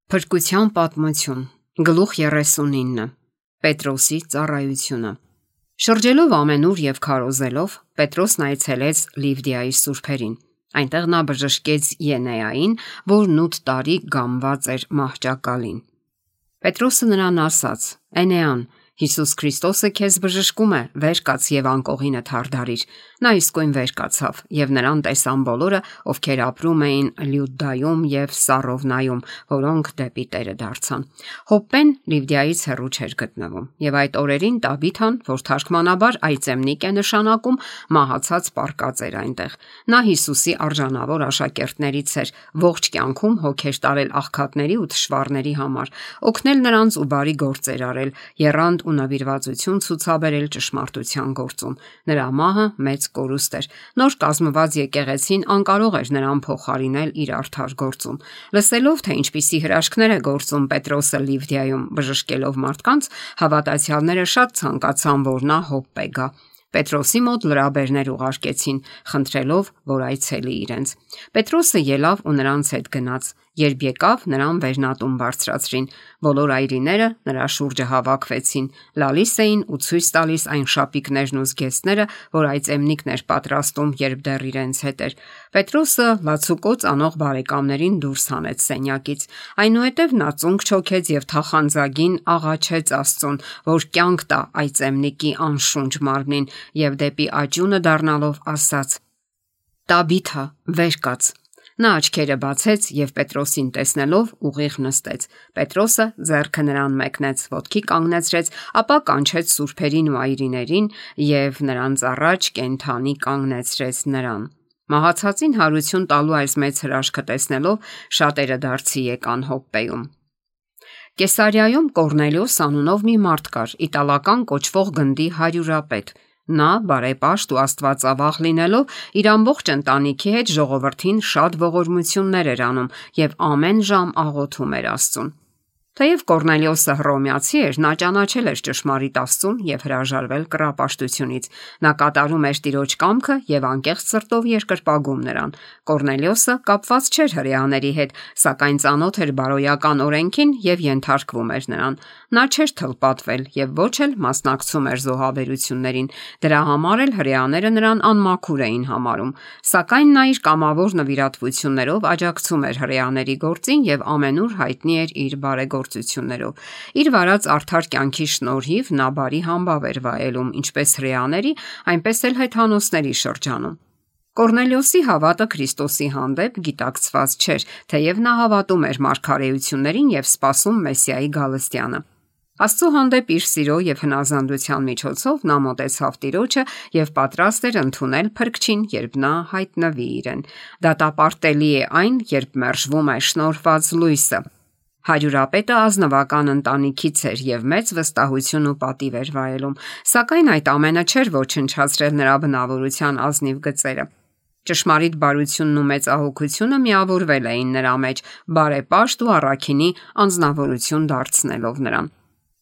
Փրկության պատմություն, գլուխ 39, Պետրոսի ծառայությունը։ Շրջելով ամենուր եւ քարոզելով, Պետրոսն այցելեց Լիվդիայի սուրբերին։ Այնտեղ նա բժշկեց Ենեային, որն 8 տարի գամված էր մահճակալին։ Պետրոսը նրան ասաց. «Էնեան, Հիսուս Քրիստոսը քեզ բժշկում է, վեր կաց եւ անկողինը թարդարիր»։ Նա իսկույն վեր կացավ եւ նրան տեսան բոլորը, ովքեր ապրում էին Լյուդայում եւ Սարովնայում, որոնք դեպի Տերը դարձան։ Հոպպեն Լիվդիայից հեռու չէր գտնվում, եւ այդ օրերին Տաբիթան, որ թարգմանաբար այծեմնիկ է նշանակում, մահացած պառկած էր այնտեղ։ Նա Հիսուսի արժանավոր աշակերտներից էր, ողջ կյանքում հոգեր տարել աղքատների ու թշվառների համար, օգնել նրանց ու բարի գործեր արել, եռանդ ու նվիրվածություն ցուցաբերել ճշմարտության գործում։ Նրա մահը մեծ կորուստ էր։ Նոր կազմված եկեղեցին անկարող էր նրան փոխարինել իր արդար գործում։ Լսելով, թե ինչպիսի հրաշքներ է գործում Պետրոսը Լիվդիայում բժշկելով մարդկանց, հավատացյալները շատ ցանկացան, որ նա Հոպպե գա։ Պետրոսի մոտ լրաբերներ ուղարկեցին, խնդրելով, որ այցելի իրենց։ Պետրոսը ելավ ու նրանց հետ գնաց։ Երբ եկավ, նրան վերնատուն բարձրացրին։ Բոլոր այրիները նրա շուրջը հավաքվեցին, լալիս էին ու ցույց տալիս այն շապիկներն ու զգեստները, որ այծեմնիկն էր պատրաստում, երբ դեռ իրենց հետ էր։ Պետրոսը լացուկոծ անող բարեկամներին դուրս հանեց սենյակից։ Այնուհետև նա ծունկ չոքեց եւ թախանձագին աղաչեց Աստծուն, որ կյանք տա այծեմնիկի անշունչ մարմնին, եւ դեպի աճյունը դառնալով ասաց. «Տաբիթա, վեր կաց»։ Նա աչքերը բացեց եւ Պետրոսին տեսնելով ուղիղ նստեց։ Պետրոսը ձեռքը նրան մեկնեց, ոտքի կանգնեցրեց, ապա կանչեց սուրբերին ու այրիներին եւ նրանց առաջ կենդանի կանգնեցրեց նրան։ Մահացածին հարություն տալու այս մեծ հրաշքը տեսնելով շատերը դարձի եկան Հոպպեում։ Կեսարիայում Կորնելիոս անունով մի մարդ կար, իտալական կոչվող գնդի հարյուրապետ։ Նա բարեպաշտ ու աստվածավախ լինելով իր ամբողջ ընտանիքի հետ ժողովրդին շատ ողորմություններ էր անում եւ ամեն ժամ աղոթում էր Աստծուն։ Թեև Կորնելիոսը հռոմեացի էր, նա ճանաչել էր ճշմարիտ Աստծուն եւ հրաժարվել կռապաշտությունից։ Նա կատարում էր Տիրոջ կամքը եւ անկեղծ սրտով երկրպագում նրան։ Կորնելիոսը կապված չէր հրեաների հետ, սակայն ծանոթ էր բարոյական օրենքին եւ ենթարկվում էր նրան։ Նա չէր թլպատվել եւ ոչ էլ մասնակցում էր զոհաբերություններին։ Դրա համար էլ հրեաները նրան անմաքուր էին համարում։ Սակայն նա իր կամավոր նվիրատվություններով աջակցում էր հրեաների գործին եւ ամենուր հայտնի էր իր բարեգործություններով։ Իր վարած արդար կյանքի շնորհիվ նա բարի համբավ էր վայելում ինչպես հրեաների, այնպես էլ հեթանոսների շրջանում։ Կորնելիոսի հավատը Քրիստոսի հանդեպ գիտակցված չէր, թեև նա հավատում էր մարգարեություններին եւ սպասում Մեսիայի գալստյանը։ Աստծո հանդեպ իր սիրո եւ հնազանդության միջոցով նա մոտեցավ Տիրոջը եւ պատրաստ էր ընդունել Փրկչին, երբ նա հայտնվի իրեն։ Դատապարտելի է այն, երբ մերժվում է շնորհված լույսը։ Հարյուրապետը ազնվական ընտանիքից էր եւ մեծ վստահություն ու պատիվ էր վայելում, սակայն այդ ամենը չէր ոչնչացրել նրա բնավորության ազնիվ գծերը։ Ճշմարիտ բարությունն ու մեծահոգությունը միավորվել էին նրա մեջ, բարեպաշտ ու առաքինի անձնավորություն դարձնելով նրան։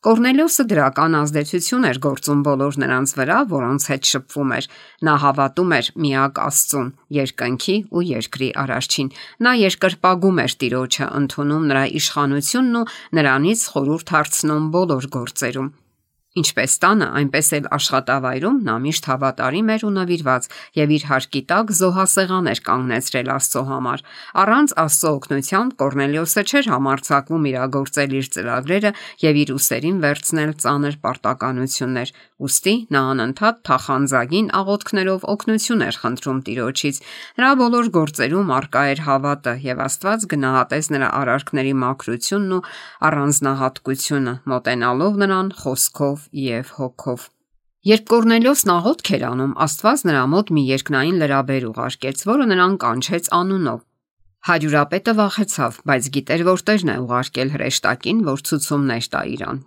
Կորնելիոսը դրական ազդեցություն էր գործում բոլոր նրանց վրա, որոնց հետ շփվում էր։ Նա հավատում էր միակ Աստծուն, երկնքի ու երկրի Արարչին։ Նա երկրպագում էր Տիրոջը, ընդունում նրա իշխանությունն ու նրանից խորհուրդ հարցնում բոլոր գործերում։ Ինչպես տանը, այնպես էլ աշխատավայրում նա միշտ հավատարիմ էր ու նվիրված եւ իր հարկի տակ զոհասեղան էր կանգնեցրել Աստծո համար։ Առանց Աստծո օգնության Կորնելիոսը չէր համարձակվում իրագործել իր ծրագրերը եւ իր ուսերին վերցնել ծանր պարտականություններ։ Ուստի նա անընդհատ թախանձագին աղոթքներով օգնություն էր խնդրում Տիրոջից։ Նրա բոլոր գործերում առկա էր հավատը եւ Աստված գնահատեց նրա արարքների մաքրությունն ու առանձնահատկությունը, մոտենալով նրան խոսքով եւ հոգով։ Երբ Կորնելիոսն աղոթք էր անում, Աստված նրա մոտ մի երկնային լրաբեր ուղարկեց, որը նրան կանչեց անունով։ Հարյուրապետը վախեցավ, բայց գիտեր, որ Տերն է ուղարկել հրեշտակին, որ ցուցումներ տա իրան։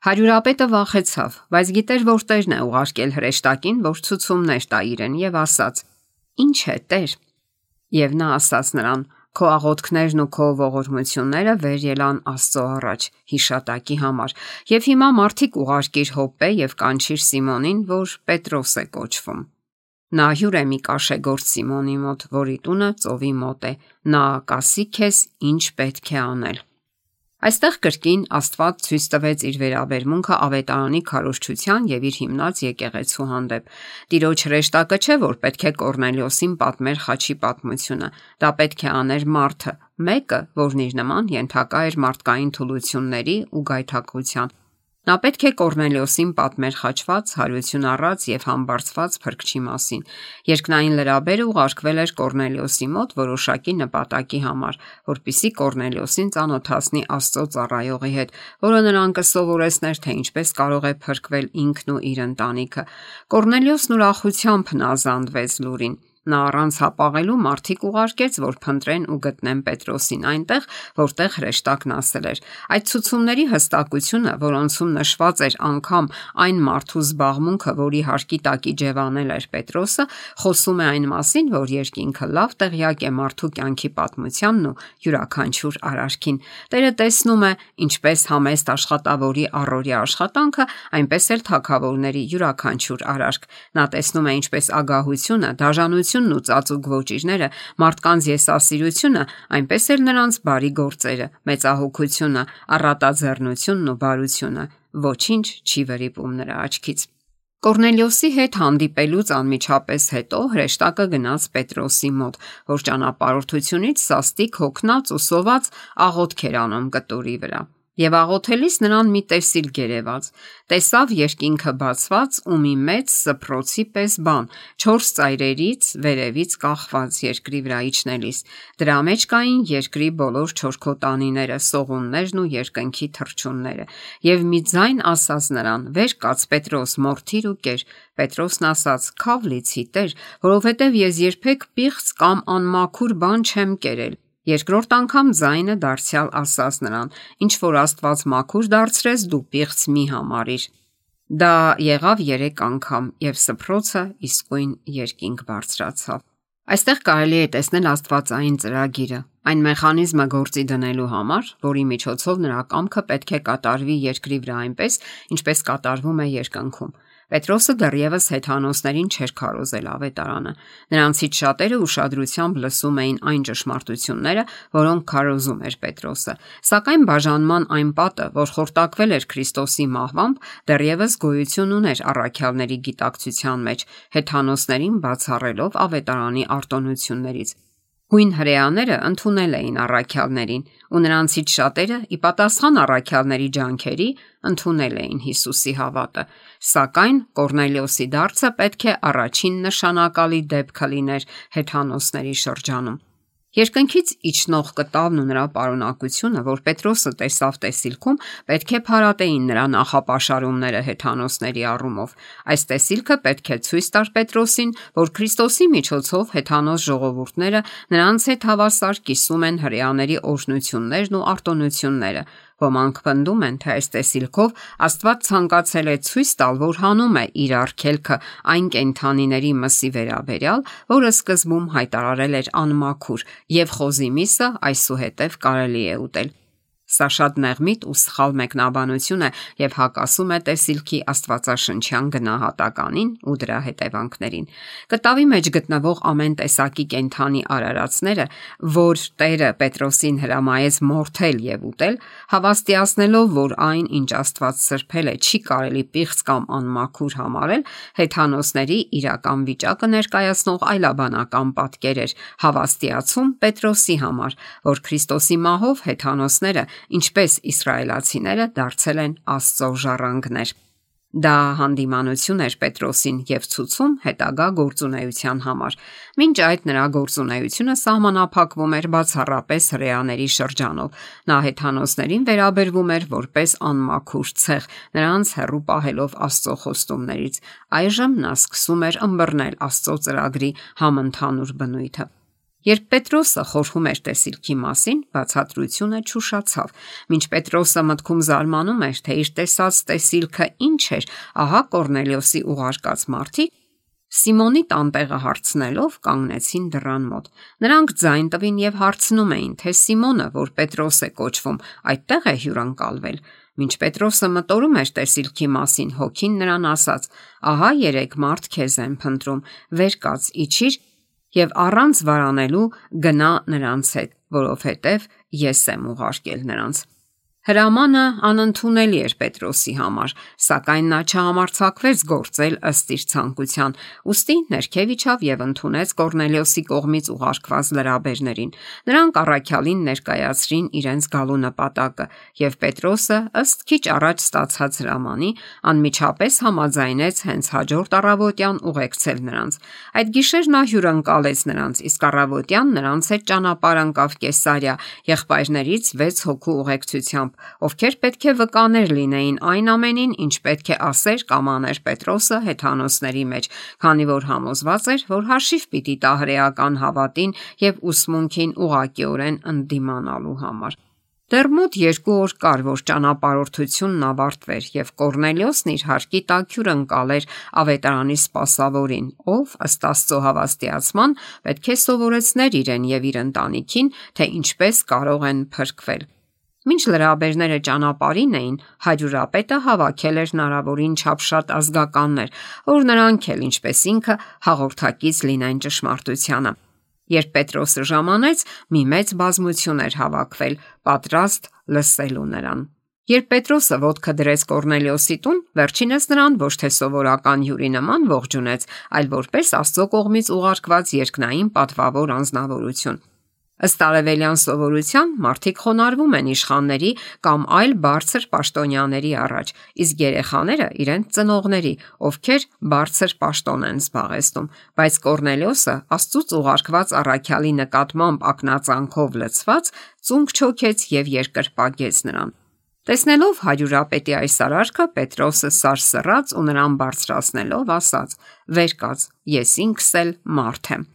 Հարյուրապետը վախեցավ, բայց գիտեր, որ Տերն է ուղարկել հրեշտակին, որ ցուցումներ տա իրեն, եւ ասաց. «Ինչ է, Տեր»։ Եվ նա ասաց նրան. «Քո աղոթքներն ու քո ողորմությունները վեր ելան Աստծո առաջ հիշատակի համար, եւ հիմա մարդիկ ուղարկիր Հոպպե եւ կանչիր Սիմոնին, որ Պետրոս է կոչվում։ Նա հյուր է մի կաշեգործ Սիմոնի մոտ, որի տունը ծովի մոտ է, նա կասի քեզ ինչ պետք է անել»։ Այստեղ կրկին Աստված ցույց տվեց իր վերաբերմունքը ավետարանի քարոզչության եւ իր հիմնած եկեղեցու հանդեպ։ Տիրոջ հրեշտակը չէ, որ պետք է Կորնելիոսին պատմեր խաչի պատմությունը։ Դա պետք է աներ մարդը, մեկը, որն իր նման ենթակա էր մարդկային թուլությունների ու գայթակղության։ Նա պետք է Կորնելիոսին պատմեր խաչված, հարություն առած եւ համբարձված փրկչի մասին։ Երկնային լրաբերը ուղարկվել էր Կորնելիոսի մոտ որոշակի նպատակի համար, որպիսի Կորնելիոսին ծանոթացնի Աստծո ծառայողի հետ, որը նրան կսովորեցներ, թե ինչպես կարող է փրկվել ինքն ու իր ընտանիքը։ Կորնելիոսն ուրախությամբ հնազանդվեց լուրին։ Նա առանց հապաղելու մարդիկ ուղարկեց, որ փնտրեն ու գտնեն Պետրոսին այնտեղ, որտեղ հրեշտակն ասել էր։ Այդ ցուցումների հստակությունը, որոնցում նշված էր անգամ այն մարդու զբաղմունքը, որի հարկի տակ իջևանել էր Պետրոսը, խոսում է այն մասին, որ երկինքը լավ տեղյակ է մարդու կյանքի պատմությանն ու յուրաքանչյուր արարքին։ Տերը տեսնում է ինչպես համեստ աշխատավորի առօրյա աշխատանքը, այնպես էլ թագավորների յուրաքանչյուր արարք։ Նա տեսնում է ինչպես ագահությունը, դաժանությունն ու ծածուկ ոճիրները, մարդկանց եսասիրությունը, այնպես էլ նրանց բարի գործերը, մեծահոգությունը, առատաձեռնությունն ու բարությունը։ Ոչինչ չի վրիպում նրա աչքից։ Կորնելիոսի հետ հանդիպելուց անմիջապես հետո հրեշտակը գնաց Պետրոսի մոտ, որ ճանապարհորդությունից սաստիկ հոգնած ու սոված աղոթք էր անում կտուրի վրա։ Եվ աղոթելիս նրան մի տեսիլ գերեված, տեսավ երկինքը բացված ու մի մեծ սփռոցի պես բան, 4 ծայրերից վերևից կախված երկրի վրա իջնելիս։ Դրա մեջ կային երկրի բոլոր չորքոտանիները, սողուններն ու երկնքի թռչունները։ Եվ մի ձայն ասաց նրան. «Վեր կաց Պետրոս, մորթիր ու կեր»։ Պետրոսն ասաց. «Քավ լիցի Տեր, որովհետև ես երբեք պիղծ կամ անմաքուր բան չեմ կերել»։ Երկրորդ անգամ ձայնը դարձյալ ասաց նրան. «Ինչ որ Աստված մաքուր դարձրեց, դու պիղծ մի համարիր»։ Դա եղավ 3 անգամ, եւ սփռոցը իսկույն երկինք բարձրացավ։ Այստեղ կարելի է տեսնել աստվածային ծրագիրը, այն մեխանիզմը գործի դնելու համար, որի միջոցով նրա կամքը պետք է կատարվի երկրի վրա այնպես, ինչպես կատարվում է երկնքում։ Պետրոսը դեռևս հեթանոսներին չէր քարոզել ավետարանը։ Նրանցից շատերը ուշադրությամբ լսում էին այն ճշմարտությունները, որոնք քարոզում էր Պետրոսը։ Սակայն բաժանման այն պատը, որ խորտակվել էր Քրիստոսի մահվամբ, դեռևս գոյություն ուներ առաքյալների գիտակցության մեջ, հեթանոսներին բացառելով ավետարանի արտոնություններից։ Հույն հրեաները ընդունել էին առաքյալներին, ու նրանցից շատերը, ի պատասխան առաքյալների ջանքերի, ընդունել էին Հիսուսի հավատը։ Սակայն Կորնելիոսի դարձը պետք է առաջին նշանակալի դեպքը լիներ հեթանոսների շրջանում։ Երկնքից իջնող կտավն ու նրա պարունակությունը, որ Պետրոսը տեսավ տեսիլքում, պետք է փարատեին նրա նախապաշարումները հեթանոսների առումով։ Այս տեսիլքը պետք է ցույց տար Պետրոսին, որ Քրիստոսի միջոցով հեթանոս ժողովուրդները նրանց հետ հավասար կիսում են հրեաների օրհնություններն ու արտոնությունները։ Ոմանք պնդում են, թե այս տեսիլքով Աստված ցանկացել է ցույց տալ, որ հանում է իր արգելքը այն կենդանիների մսի վերաբերյալ, որը սկզբում հայտարարել էր անմաքուր, եւ խոզի միսը այսուհետև կարելի է ուտել։ Սա շատ նեղմիտ ու սխալ մեկնաբանություն է եւ հակասում է տեսիլքի աստվածաշնչյան գնահատականին ու դրա հետևանքներին։ Կտավի մեջ գտնվող ամեն տեսակի կենդանի արարածները, որ Տերը Պետրոսին հրամայեց մորթել եւ ուտել, հավաստիացնելով, որ այն, ինչ Աստված սրբել է, չի կարելի պիղծ կամ անմաքուր համարել, հեթանոսների իրական վիճակը ներկայացնող այլաբանական պատկեր էր, հավաստիացում Պետրոսի համար, որ Քրիստոսի մահով հեթանոսները, ինչպես իսրայելացիները, դարձել են Աստծո ժառանգներ։ Դա հանդիմանություն էր Պետրոսին եւ ցուցում հետագա գործունեության համար։ Մինչ այդ նրա գործունեությունը սահմանափակվում էր բացառապես հրեաների շրջանով։ Նա հեթանոսներին վերաբերվում էր որպես անմաքուր ցեղ, նրանց հեռու պահելով Աստծո խոստումներից։ Այժմ նա սկսում էր ըմբռնել Աստծո ծրագրի համընդհանուր բնույթը։ Երբ Պետրոսը խորհում էր տեսիլքի մասին, բացատրությունը չուշացավ։ Մինչ Պետրոսը մտքում զարմանում էր, թե իր տեսած տեսիլքը ինչ էր, ահա Կորնելիոսի ուղարկած մարդիկ Սիմոնի տանտեղը հարցնելով կանգնեցին դռան մոտ։ Նրանք ձայն տվին եւ հարցնում էին, թե Սիմոնը, որ Պետրոս է կոչվում, այդտեղ է հյուրընկալվել։ Մինչ Պետրոսը մտորում էր տեսիլքի մասին, հոգին նրան ասաց. «Ահա 3 մարդ քեզ են փնտրում, վեր կաց, իջիր եւ առանց վարանելու գնա նրանց հետ, որովհետև ես եմ ուղարկել նրանց»։ Հրամանը անընդունելի էր Պետրոսի համար, սակայն նա չհամարձակվեց գործել ըստ իր ցանկության, ուստի ներքև իջավ եւ ընդունեց Կորնելիոսի կողմից ուղարկված լրաբերներին։ Նրանք առաքյալին ներկայացրին իրենց գալու նպատակը, եւ Պետրոսը, ըստ քիչ առաջ ստացած հրամանի, անմիջապես համաձայնեց հենց հաջորդ առավոտյան ուղեկցել նրանց։ Այդ գիշեր նա հյուրընկալեց նրանց, իսկ առավոտյան նրանց հետ ճանապարհ ընկավ Կեսարիա եղբայրներից 6 հոգու ուղեկցությամբ, ովքեր պետք է վկաներ լինեին այն ամենին, ինչ պետք է ասեր կամ աներ Պետրոսը հեթանոսների մեջ, քանի որ համոզված էր, որ հաշիվ պիտի տա հրեական հավատին եւ ուսմունքին ուղղակիորեն ընդդիմանալու համար։ Դեռ մոտ 2 օր կար, որ ճանապարհորդությունն ավարտվեր, եւ Կորնելիոսն իր հարկի տակ հյուրընկալեր ավետարանի սպասավորին, ով ըստ Աստծո հավաստիացման պետք է սովորեցներ իրեն եւ իր ընտանիքին, թե ինչպես կարող են փրկվել։ Մինչ լրաբերները ճանապարհին էին, հարյուրապետը հավաքել էր հնարավորին չափ շատ ազգականներ, որ նրանք էլ ինչպես ինքը հաղորդակից լինեն ճշմարտությանը։ Երբ Պետրոսը ժամանեց, մի մեծ բազմություն էր հավաքվել, պատրաստ լսելու նրան։ Երբ Պետրոսը ոտքը դրեց Կորնելիոսի տուն, վերջինս նրան ոչ թե սովորական հյուրի նման ողջունեց, այլ որպես Աստծո կողմից ուղարկված երկնային պատվավոր անձնավորություն։ Ըստ արևելյան սովորության մարդիկ խոնարհվում են իշխանների կամ այլ բարձր պաշտոնյաների առաջ, իսկ երեխաները իրենց ծնողների, ովքեր բարձր պաշտոն են զբաղեցնում, բայց Կորնելիոսը Աստծուց ուղարկված առաքյալի նկատմամբ ակնածանքով լցված ծունկ չոքեց եւ երկրպագեց նրան։ Տեսնելով հարյուրապետի այս արարքը, Պետրոսը սարսռաց ու նրան բարձրացնելով ասաց. «Վեր կաց, ես ինքս էլ մարդ եմ»։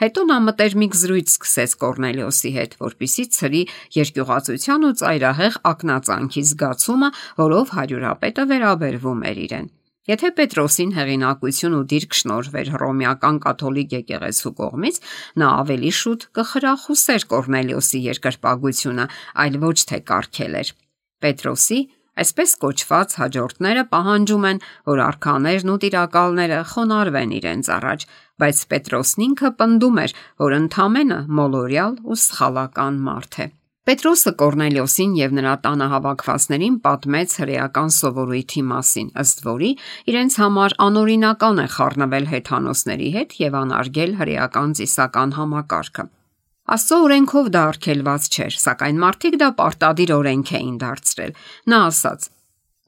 Հետո նա մտերմիկ զրույց սկսեց Կորնելիոսի հետ, որպեսզի ցրի երկյուղածության ու ծայրահեղ ակնածանքի զգացումը, որով հարյուրապետը վերաբերվում էր իրեն։ Եթե Պետրոսին հեղինակություն ու դիրք շնորհվեր հռոմեական կաթոլիկ եկեղեցու կողմից, նա ավելի շուտ կխրախուսեր Կորնելիոսի երկրպագությունը, այլ ոչ թե կարգելեր։ Պետրոսի այսպես կոչված հաջորդները պահանջում են, որ արքաներն ու տիրակալները խոնարհվեն իրենց առաջ, բայց Պետրոսն ինքը պնդում էր, որ ընդամենը մոլորյալ ու սխալական մարդ է։ Պետրոսը Կորնելիոսին եւ նրա տանը հավաքվածներին պատմեց հրեական սովորույթի մասին, ըստ որի իրենց համար անօրինական է խառնվել հեթանոսների հետ եւ անարգել հրեական ծիսական համակարգը։ Աստծո օրենքով դա արգելված չէր, սակայն մարդիկ դա պարտադիր օրենք էին դարձրել։ Նա ասաց.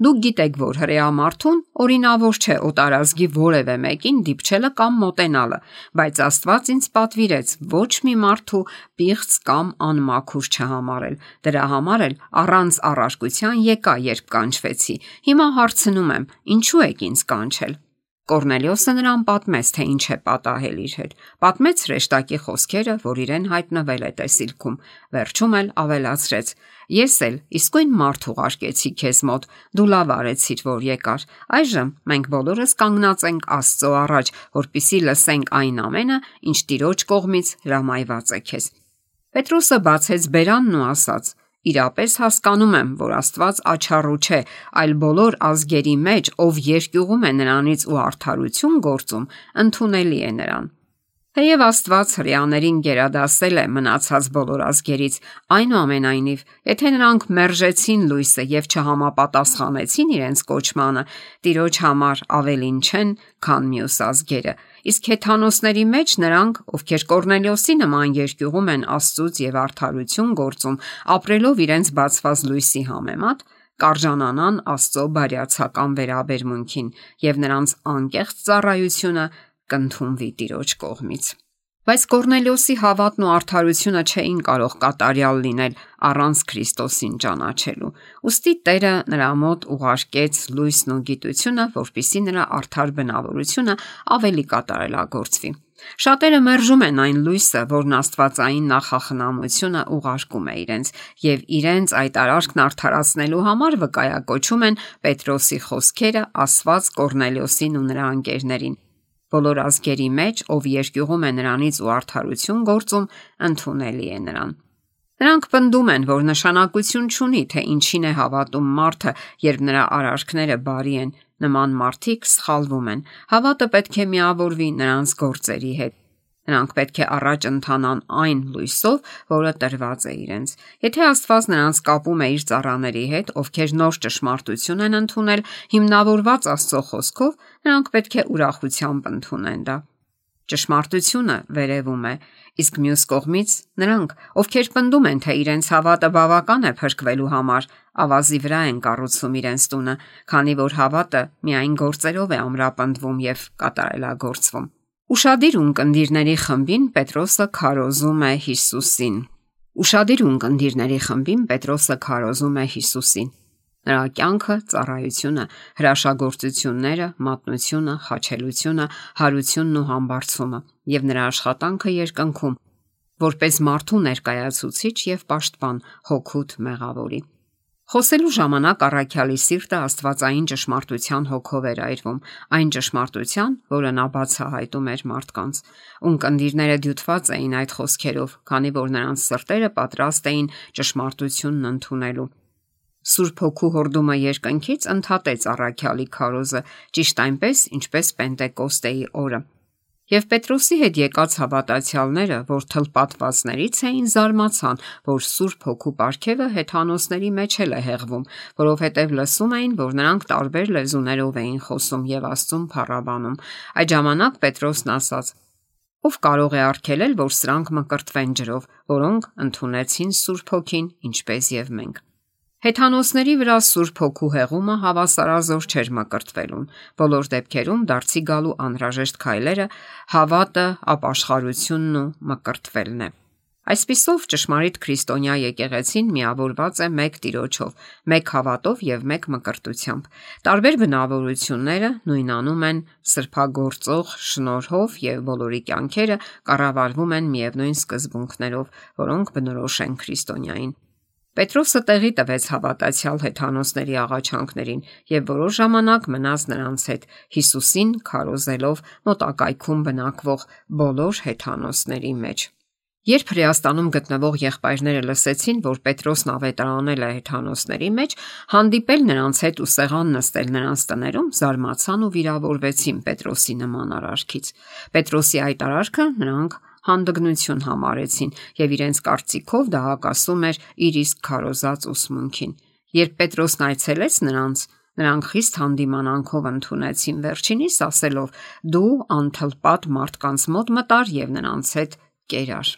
«Դուք գիտեք, որ հրեա մարդուն օրինավոր չէ օտարազգի որևէ մեկին դիպչելը կամ մոտենալը, բայց Աստված ինձ պատվիրեց ոչ մի մարդու պիղծ կամ անմաքուր չհամարել։ Դրա համար էլ առանց առարկության եկա, երբ կանչվեցի։ Հիմա հարցնում եմ, ինչու եք ինձ կանչել»։ Կորնելիոսը նրան պատմեց, թե ինչ է պատահել իր հետ։ Պատմեց հրեշտակի խոսքերը, որ իրեն հայտնվել է տեսիլքում։ Վերջում էլ ավելացրեց. «Ես էլ իսկույն մարդ ուղարկեցի քեզ մոտ, դու լավ արեցիր, որ եկար։ Այժմ մենք բոլորս կանգնած ենք Աստծո առաջ, որպեսզի լսենք այն ամենը, ինչ Տիրոջ կողմից հրամայված է քեզ»։ Պետրոսը բացեց բերանն ու ասաց. «Իրապես հասկանում եմ, որ Աստված աչառու չէ, այլ բոլոր ազգերի մեջ, ով երկյուղում է նրանից ու արդարություն գործում, ընդունելի է նրան։ Թեև Աստված հրեաներին գերադասել է մնացած բոլոր ազգերից, այնուամենայնիվ, եթե նրանք մերժեցին լույսը եւ չհամապատասխանեցին իրենց կոչմանը, Տիրոջ համար ավելին չեն, քան մյուս ազգերը։ Իսկ հեթանոսների մեջ նրանք, ովքեր Կորնելիոսի նման երկյուղում են Աստծուց եւ արդարություն գործում, ապրելով իրենց բացված լույսի համեմատ, կարժանանան Աստծո բարյացակամ վերաբերմունքին եւ նրանց անկեղծ ծառայությունը կընդունվի Տիրոջ կողմից։ Բայց Կորնելիոսի հավատն ու արդարությունը չէին կարող կատարյալ լինել առանց Քրիստոսին ճանաչելու։ Ուստի Տերը նրա մոտ ուղարկեց լույսն ու գիտությունը, որպեսզի նրա արդար բնավորությունը ավելի կատարելագործվի։ Շատերը մերժում են այն լույսը, որն աստվածային նախախնամությունը ուղարկում է իրենց, եւ իրենց այդ արարքն արդարացնելու համար վկայակոչում են Պետրոսի խոսքերը ասված Կորնելիոսին ու նրա ընկերներին։ Բոլոր ազգերի մեջ, ով երկյուղում է նրանից ու արդարություն գործում, ընդունելի է նրան։ Նրանք պնդում են, որ նշանակություն չունի, թե ինչին է հավատում մարդը, երբ նրա արարքները բարի են, նման մարդիկ սխալվում են։ Հավատը պետք է միավորվի նրանց գործերի հետ։ Նրանք պետք է առաջ ընթանան այն լույսով, որը տրված է իրենց։ Եթե Աստված նրանց կապում է իր ծառաների հետ, ովքեր նոր ճշմարտություն են ընդունել, հիմնավորված Աստծո խոսքով, նրանք պետք է ուրախությամբ ընդունեն դա։ Ճշմարտությունը վերևում է, իսկ մյուս կողմից նրանք, ովքեր պնդում են, թե իրենց հավատը բավական է փրկվելու համար, ավազի վրա են կառուցում իրենց տունը, քանի որ հավատը միայն գործերով է ամրապնդվում եւ կատարելագործվում։ Ուշադիր ունկնդիրների խմբին Պետրոսը քարոզում է Հիսուսին։ Նրա կյանքը, ծառայությունը, հրաշագործությունները, մատնությունը, խաչելությունը, հարությունն ու համբարձումը եւ նրա աշխատանքը երկնքում, որպես մարդու ներկայացուցիչ եւ պաշտպան հոգուտ մեղավորի։ Խոսելու ժամանակ առաքյալի սիրտը աստվածային ճշմարտության հոգով էր այրվում, այն ճշմարտության, որը նա բացահայտում էր մարդկանց։ Ունկնդիրները դյութված էին այդ խոսքերով, քանի որ նրանց սրտերը պատրաստ էին ճշմարտությունն ընդունելու։ Սուրբ Հոգու հորդումը երկնքից ընդհատեց առաքյալի քարոզը, ճիշտ այնպես, ինչպես Պենտեկոստեի օրը։ Եվ Պետրոսի հետ եկած հավատացյալները, որ թլպատվածներից էին, զարմացան, որ Սուրբ Հոգու պարգևը հեթանոսների մեջ էլ է հեղվում, որովհետև լսում էին, որ նրանք տարբեր լեզուներով էին խոսում եւ Աստծուն փառաբանում։ Այդ ժամանակ Պետրոսն ասաց. «Ով կարող է արգելել, որ սրանք մկրտվեն ջրով, որոնք ընդունեցին Սուրբ Հոգին, ինչպես եւ մենք»։ Հեթանոսների վրա Սուրբ Հոգու հեղումը հավասարազոր չէր մկրտվելուն։ Բոլոր դեպքերում դարձի գալու անհրաժեշտ քայլերը հավատը, ապաշխարությունն ու մկրտվելն է։ Այսպիսով ճշմարիտ քրիստոնյա եկեղեցին միավորված է մեկ Տիրոջով, մեկ հավատով եւ մեկ մկրտությամբ։ Տարբեր բնավորությունները նույնանում են սրբագործող շնորհով եւ բոլորի կյանքերը կառավարվում են միևնույն սկզբունքներով, որոնք բնորոշ են քրիստոնյային։ Պետրոսը տեղի տվեց հավատացյալ հեթանոսների աղաչանքներին եւ որոշ ժամանակ մնաց նրանց հետ, Հիսուսին քարոզելով մոտակայքում բնակվող բոլոր հեթանոսների մեջ։ Երբ Հրեաստանում գտնվող եղբայրները լսեցին, որ Պետրոսն ավետարանել է հեթանոսների մեջ, հանդիպել նրանց հետ ու սեղան նստել նրանց տներում, զարմացան ու վիրավորվեցին Պետրոսի նման արարքից։ Պետրոսի այդ արարքը նրանք հանդգնություն համարեցին եւ իրենց կարծիքով դա հակասում էր իր իսկ քարոզած ուսմունքին։ Երբ Պետրոսն այցելեց նրանք խիստ հանդիմանանքով ընդունեցին, վերջինիս ասելով. «Դու անթլպատ մարդկանց մոտ մտար եւ նրանց հետ կերար»։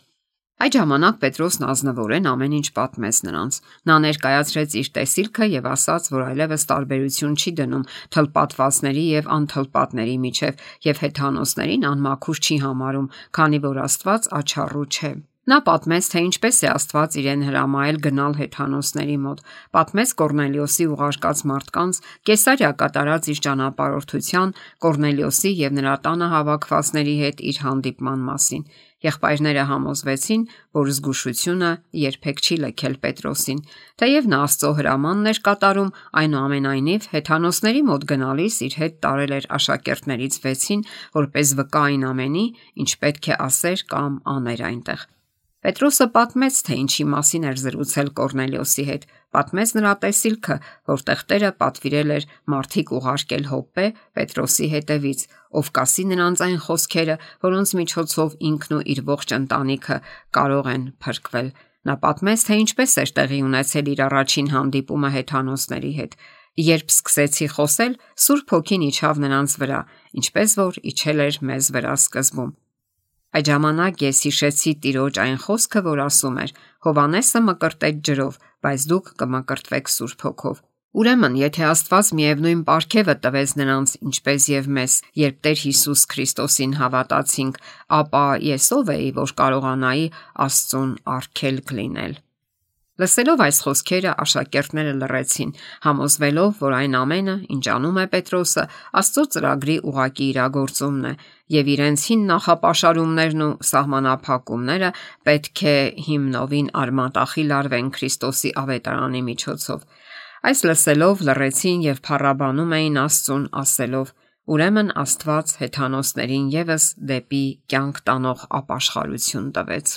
Այդ ժամանակ Պետրոսն ազնվորեն ամեն ինչ պատմեց նրանց։ Նա ներկայացրեց իր տեսիլքը եւ ասաց, որ այլևս տարբերություն չի դնում թլպատվածների եւ անթլպատների միջև եւ հեթանոսներին անմաքուր չի համարում, քանի որ Աստված աչառու չէ։ Նա պատմեց, թե ինչպես է Աստված իրեն հրամայել գնալ հեթանոսների մոտ, պատմեց Կորնելիոսի ուղարկած մարդկանց Կեսարիա կատարած իր ճանապարհորդության, Կորնելիոսի եւ նրա տանը հավաքվածների հետ իր հանդիպման մասին։ Եղբայրները համոզվեցին, որ զգուշությունը երբեք չի լքել Պետրոսին, թեև նա Աստծո հրամանն էր կատարում, այնուամենայնիվ հեթանոսների մոտ գնալիս իր հետ տարել էր աշակերտներից 6-ին, որպես վկա այն ամենի, ինչ պետք է ասեր կամ աներ այնտեղ։ Պետրոսը պատմեց, թե ինչի մասին էր զրուցել Կորնելիոսի հետ, պատմեց նրա տեսիլքը, որտեղ Տերը պատվիրել էր մարդիկ ուղարկել Հոպպե Պետրոսի հետևից, ով կասի նրանց այն խոսքերը, որոնց միջոցով ինքն ու իր ողջ ընտանիքը կարող են փրկվել։ Նա պատմեց, թե ինչպես էր տեղի ունեցել իր առաջին հանդիպումը հեթանոսների հետ։ Երբ սկսեցի խոսել, Սուրբ Հոգին իջավ նրանց վրա, ինչպես որ իջել էր մեզ վրա սկզբում։ Այդ ժամանակ ես հիշեցի Տիրոջ այն խոսքը, որ ասում էր. «Հովանեսը մկրտեց ջրով, բայց դուք կմկրտվեք Սուրբ Հոգով»։ Ուրեմն, եթե Աստված միևնույն պարգևը տվեց նրանց, ինչպես եւ մեզ, երբ Տեր Հիսուս Քրիստոսին հավատացինք, ապա ես ով էի, որ կարողանայի Աստծուն արգելք լինել։ Լսելով այս խոսքերը աշակերտները լռեցին, համոզվելով, որ այն ամենը, ինչ անում է Պետրոսը, Աստծո ծրագրի ուղղակի իրագործումն է, եւ իրենց հին նախապաշարումներն ու սահմանափակումները պետք է հիմնովին արմատախիլ արվեն Քրիստոսի ավետարանի միջոցով։ Այս լսելով լռեցին եւ փառաբանում էին Աստծուն, ասելով. «Ուրեմն Աստված հեթանոսներին եւս դեպի կյանք տանող ապաշխարություն տվեց»։